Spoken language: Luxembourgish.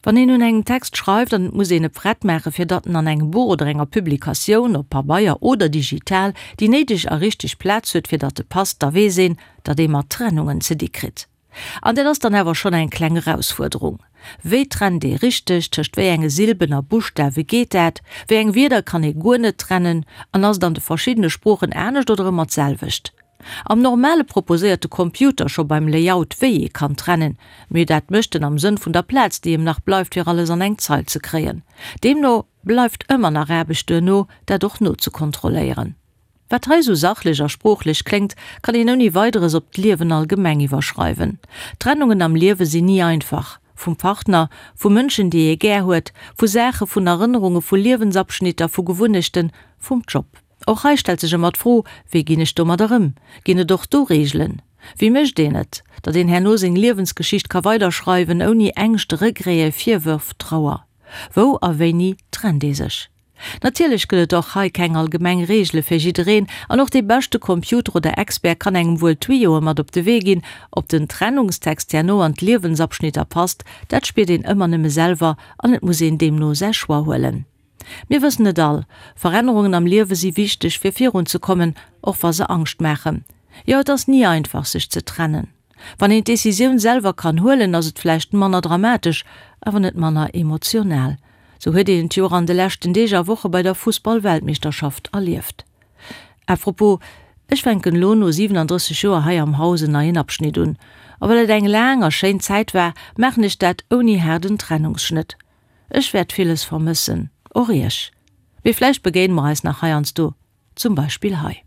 Wann een un engem Text schreift an et muss een e prett maachen, fir datt en an engem Buch oder enger Publikatioun, op Pabeier oder digital, déi néideg a richteg Plaz huet, fir datt e passt, da weess een, datt ee mat Trennungen ze di kritt. An dat ass dann awer schonn eng kleng Erausfuerderung. Wéi trennt ee richteg? Tëscht wéi enge Silben a Buschtawe geet dat? Wéi eng Wierder kann ee guer net trennen? An ass et an de verschiddene Sproochen anescht oder ëmmer d'selwecht? Am Normale proposéiert de Computer scho beim Layout wéi ee kann trennen, mee dat mécht en am Sënn vun der Plaz déi em nach bleift fir alles an eng Zeil ze kréien. Deemno bleift ëmmer nach Aarbecht duerno dat och nozekontrolléieren. Wat hei sou sachlech a sproochlech kléngt, kann een ouni Weideres op d'Liewen allgemeng iwwerschreiwen. Trennungen am Liewe sinn ni einfach. Vum Partner, vu Mënschen déi ee gär huet, vu Saache, vun Erënnerunge, vu Liewensabschnitter, vu Gewunnechten, vum Job. Och hei stellt sech ëmmer d'Fro, Wéi ginn ech domadder ëm? Ginn et och do Reegelen? Wéi mécht een et, datt een herno seng Liewensgeschicht ka weiderschreiwen, ouni Ängscht, Regrete, Virwërf, Trauer? Wou a wéini trennt ee sech? Natierlech gëtt et och hei keng allgemeng Reegele fir jiddereen, an och dee beschte Computer oder Expert kann engem wuel Tuyaue mat op de Wee ginn. Ob den Trennungstext herno an d'Liewensabschnitter passt, dat spiert een ëmmer nëmme selwer an et muss een deemno säi Choix huelen. Mir wëssen et all, Verännerungen am Liewe si wichteg fir virun ze kommen, och wa se Angscht maachen. Jo, et ass ni einfach sech ze trennen. Wann een d'Decisioun selwer kann huelen, ass et vläicht manner dramatesch, awer net manner emotional. Sou huet een et jo och an de leschten Deeg a Woche bei der Fussball-Weltmeeschterschaft erlieft. À propos, ech fänken elo no 37 Joer hei am Haus en neien Abschnitt un. A well et eng laang a schéin Zäit war, maachen ech dat ouni haarden Trennungsschnëtt. Ech wäert villes vermëssen, och iech. Mee vläicht begéine mer eis nach heiansdo, zum Beispill hei.